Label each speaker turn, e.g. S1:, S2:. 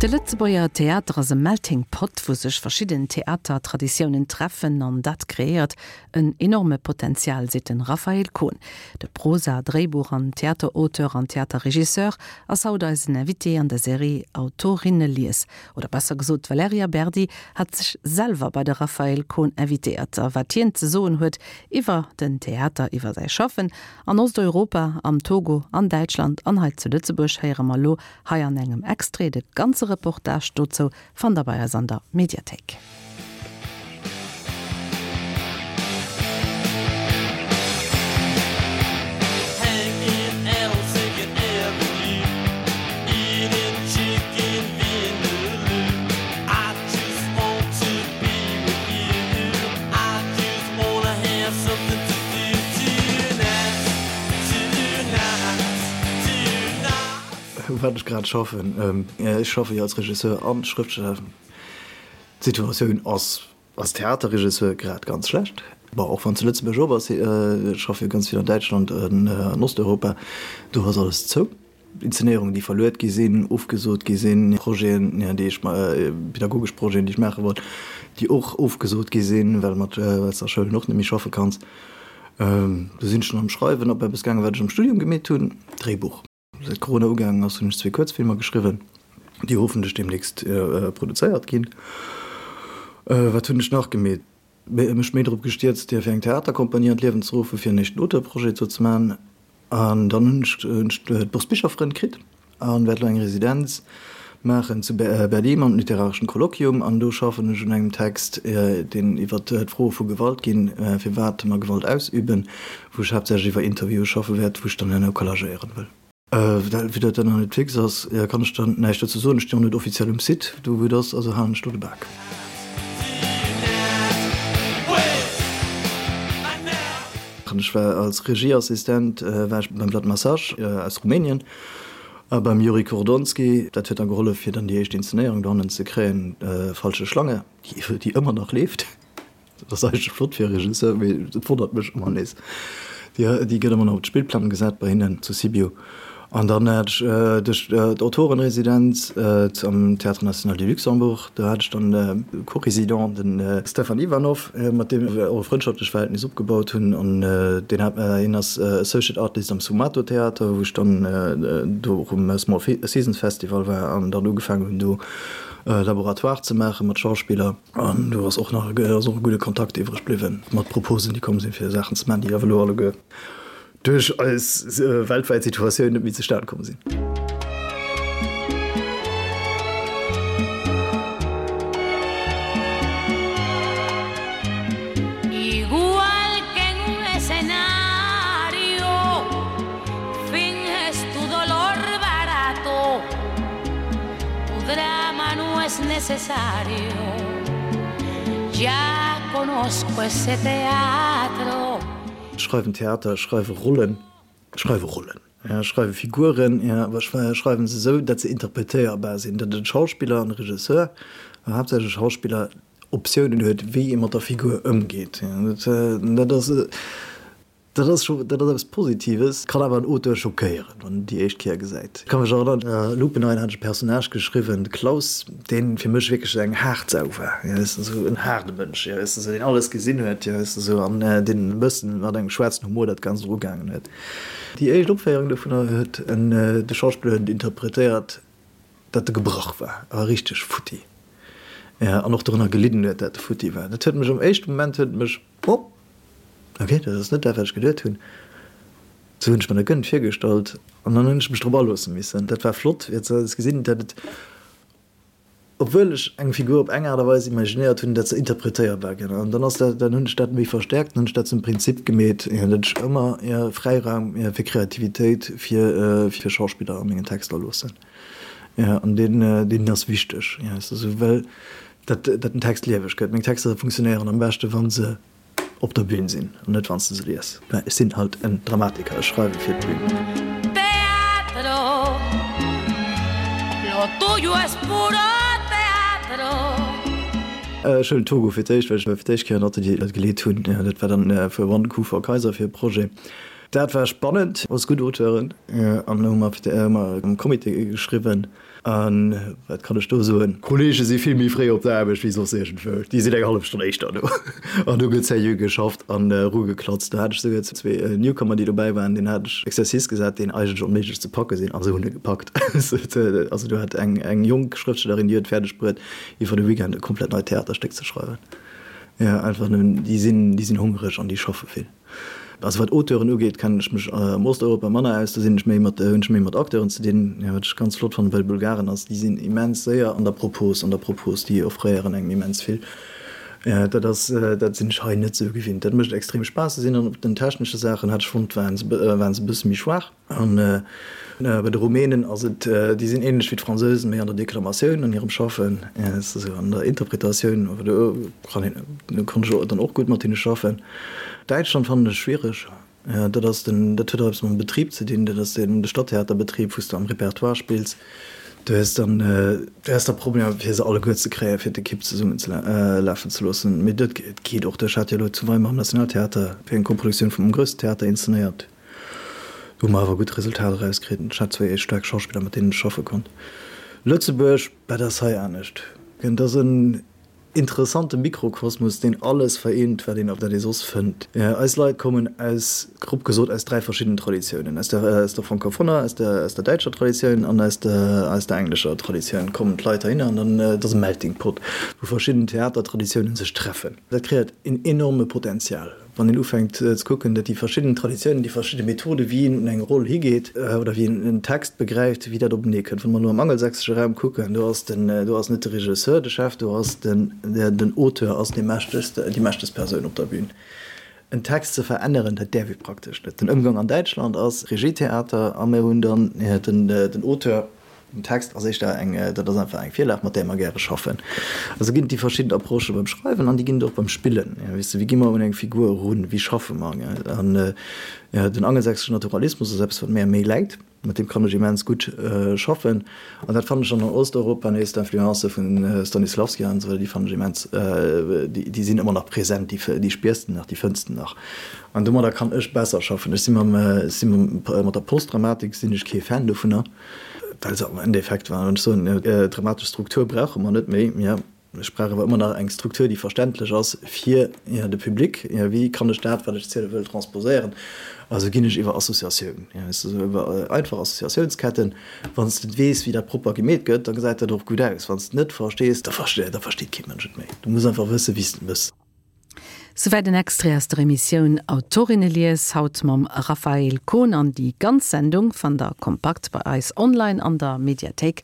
S1: De Lëtzebuerger Theater ass e Melting Pot, wou sech verschidden Theatertraditiounen treffen an dat kreéiert en enorme Potenzial, seet de Raphaël Kohn. De Prosa-, Dréibuch an Theaterauteur an Theaterregisseur ass haut eisen Invité an der Serie Autorinnelies. Oder besser gesot, d'Valerija Berdi hat sech selwer bei de Raphaël Kohn invitéiert. A wat hien ze soen huet iwwer den Theater, iwwer säi Schaffen an Osteuropa, am Togo, an Däitschland an hei zu Lëtzebuerg, héiere mer elo hei an engem Extrait. De ganze Reportage dozou fannt der bei eis an der Mediathéik.
S2: Wat ech grad schaffen? Ech schaffe jo als Regisseur an Schrëftsteller. D'Situatioun ass als Theaterregisseur grad ganz schlecht. Bon, och wann zu Lëtzebuerg op ass, ech schaffe jo ganz vill an Däitschland an an Osteuropa, do ass alles zou. Inszenéierungen, déi verluet gi sinn, ofgesot gi sinn, Projeten, déi ech, pedagogesch Projeten, déi ech maache wollt, déi och ofgesot gi sinn, well mat, well s de a Schoulen och net méi schaffe kanns. Do sinn ech dann am Schreiwen op eppes gaangen, wat ech am Studium gemeet hunn, Dréibuch. Säit Corona ugaangen ass, hunn ech zwee Kuerzfilmer geschriwwen, déi hoffentlech deemnächst produzéiert ginn. Wat hunn ech nach gemeet? Mech méi drop gestierzt, fir eng Theaterkompanie an d'Liewen ze ruffen, fir en éischten Auteurprojet do ze maachen. An dann hunn ech d'Bourse Bicherfrënn kritt an wäert elo eng Residenz maachen zu Berlin mam literareschen Kolloquium. An do schaffen ech un engem Text, deen iwwer d'Froe vu Gewalt ginn, firwat mer Gewalt ausüben, wou ech haaptsächlech iwwer Interviewe schaffe wäert, wou ech dann herno collagéieren wëll. Vue dat dat nach net fix ass, kann ech dann näischt dozou soen. Ech stinn och net offiziell um Site do wou et ass, also halen ech do de Bak. Ech war als Regieassistent war ech beim Vlad Massage aus Rumänien a beim Yuri Kordonski. Dat huet dann gehollef fir dann déi éischt Inszenéierung dohannen ze kréien, Falsche Schlange, déi ëmmer nach leeft. Dat ass eigentlech flott fir e Regisseur, mee et wonnert mech ëmmer nees. Déi, déi gëtt ëmmer nach op d'Spillplang gesat bei hinnen zu Sibiu. An dann hat ech duerch d'Autorenresidenz am Théâtre National du Luxembourg, do hat ech dann e Co-Résident, de Stefan Ivanov, mat deem ech och e frëndschaftlech Verhältnis opgebaut hunn. An deen hat, hien ass Associate Artist am Sfumato Theater, wou ech dann do och um Small Seasons Festival war an dann ugefaangen hunn do Laboratoire ze maache mat Schauspiller. An do ass och nach ass och e gudde Kontakt iwwreg bliwwen mat Proposen, déi komm sinn, fir Saachen ze maachen, déi awer elo alleguer duerch eis weltwäit Situatioun net méi zustan komm sinn. Ech schreiwen Theater, ech schreiwe Rollen, ech schreiwe Rollen, ech schreiwe Figuren, awer ech schreiwe se esou, datt se interpretéierbar sinn, datt e Schauspiller an e Regisseur, awer haaptsächlech e Schauspiller, Optiounen huet, wéi ee mat der Figur ëmgeet. Dat ass. Dat ass scho, dat ass eppes Positives, kann awer en Auteur schockéieren, wann en déi éischt Kéier gesäit. Ech ka mech erënneren, a Lupenrein hat ech e Personnage geschriwwen, de Klaus, deen fir mech wierklech esou eng haart Sau war, jo, weess de, esou en haarde Mënsch, jo, weess de, esou deen alles gesinn huet, jo, weess de, esou, an deen e bëssen mat engem schwaarzen Humor dat Ganzt erugaangen huet. Déi éischt Opféierung dovunner huet en, de Schauspiller huet et interpretéiert, datt e gebrach war, a richteg futti, jo, an och dorënner gelidden huet, dat e futti war. Dat huet mech am éischte Moment huet et mech, oh! Ok, dat ass net dat, wat ech geduet hunn. Sou hunn ech mer dat guer net virgestallt an dann hunn ech mech drop aloosse missen. Dat war flott, fir ze gesinn, dat et, obwuel ech eng Figur op eng Aart a Weis imaginéiert hunn, dat se interpretéierbar ginn. An dann ass dat, dann hunn ech dat méi verstäerkt, dann hunn ech dat zum Prinzip gemeet, dat ech ëmmer Fräiraum fir Kreativitéit fir fir Schauspiller a mengen Texter loossen. An deen, deen ass wichteg, well dat dat den Text lieweg gëtt. Meng Texter funktionéieren am beschte wa se op der Bühn sinn an net wann s de se lies. Mä ech sinn halt en Dramatiker, ech schreiwe fir d'Bühn.
S1: Teatro, lo tuyo es puro teatro.
S2: Ech huelen Togo fir d'éischt, well ech fir d'éischt Kéier en Atelier geleet hunn. Dat war dann fir One Coup for Kaiser fir e Projet. Dat war spannend, alles gutt Auteuren an hu mer am Comité geschriwwen. A wat kann ech do soen, d'Kollege si vill méi fréi op der Aarbecht wéi soss iergendwou. Déi sinn eng hallef Stonn éischter do an do gëtt seriö geschafft an erugeklatzt. Do hat ech souguer zwee Newcomer, déi dobäi waren, deenen hat ech Exercice gesat, deen eigentlech onméiglech ze packe sinn, a se hunn e gepackt. Also do hat eng jonk Schrëftstellerin, déi huet fäerdeg bruet, iwwer e Weekend e komplett neit Theaterstéck ze schreiwen. Jo, einfach nëmmen, déi sinn, déi sinn hongereg an déi schaffe vill. Also wat Auteuren ugeet, kennen ech mech am Osteuropa manner aus, do sinn ech méi mat, hunn ech méi mat Acteuren ze dinn. Jo, wat ech ganz flott fannen bei de Bulgaren ass, déi sinn immens séier an der Propos, an der Propos, déi offréieren engem immens vill. Dat ass, dat sinn ech hei net esou gewinnt. Dat mécht extrem Spaass. Se sinn dann op den technesche Saachen, hat ech fonnt, waren se, waren se e bësse méi schwaach. An bei de Rumänen ass et, déi sinn ähnlech wéi d'Fransousen, méi an der Deklamatioun an hirem Schaffen, esou an der Interpretatioun, awer do kann een, do konnt ech dann och gutt mat hinne schaffen. Däitschland fannen ech schwiereg, dat ass den, dat huet och eppes mam Betrib ze dinn, dat ass den, de Stadtheaterbetrib, wou s de am Repertoire spills, do hues dann, do hues da Problemer fir se alleguer ze kréien, fir d'Ekipp zesummen ze lafen ze loossen. Mee dat geet och. Ech hat jo elo zu Weimar am Nationaltheater fir eng Koproduktioun vum Grössten Theater inszenéiert. Do hu mer awer gutt Resultater erauskritt. Ech hat zwéi staark Schauspiller, mat deenen ech schaffe konnt. Lëtzebuerg, dat ass hei anescht. Et ass en interessante Mikrokosmos, deen alles vereent, wat een op der ee soss fënnt. Eis Leit kommen aus, grob gesot, aus 3 verschiddenen Traditiounen, aus der, aus der francophoner, aus der, aus der däitscher Traditioun an aus der, aus der englescher Traditioun kommen d'Leit heihinner. An dann, et ass e Melting Pot, wou verschidden Theatertraditiounen sech treffen. Dat kreéiert en enorme Potenzial. Wann een ufänkt ze kucken, datt déi verschidden Traditiounen, déi verschidde Methode wéi een un eng Roll higeet oder wéi een en Text begräift, wéi dat openee kënnt. Wa mer elo am angelsächsesche Raum kucken, do ass den, do ass net de Regisseur de Chef, do ass den, den Auteur ass dee mächtegst, déi mächtegst Persoun op der Bühn. En Text ze veränneren, dat däerf ee praktesch net. Den Ëmgang an Däitschland ass Regietheater a mir hunn dann den, den Auteur, Den Text ass éischter eng, dat ass einfach eng Virlag, mat där mer gäre schaffen. Also ginn et déi verschidden Approchë beim Schreiwen an déi ginn et och beim Spillen. Weess de, wéi gi mer un eng Figur erun, wéi schaffe mer? An den angelsächsesche Naturalismus ass eppes, wat mär méi läit, mat deem kann ech immens gutt schaffen. An dat fannen ech dann an Osteuropa nees, d'Influencë vu Stanislavski an esou weider, déi fannen ech immens, déi sinn ëmmer nach present, déi spiers de nach, déi fënns de nach. An domadder kann ech besser schaffen. Ech si mam, ech si mat der Postdramatik sinn ech kee Fan dovunner. Well se am Endeffekt, wann ech soen, dramatesch Struktur brauche mer net méi, jo, ech brauch awer ëmmer nach eng Struktur, déi verständlech ass fir de Public. Wéi kann ech dat, wat ech ziele wëll, transposéieren? Also ginn ech iwwer Associatioun, iwwer einfach Associatiounsketten. Wann s de weess, wéi dat propper gemeet gëtt, da gesäit dat och gutt aus. Wann s de net verstees, da versteet kee Mënsch et méi. Du muss einfach wëssen, wéi s de et méchs.
S1: Souwäit en Extrait aus der Emissioun Autorinnelies, haut mam Raphaël Kohn. An déi ganz Sendung fannt der kompakt bei eis online an der Mediathéik.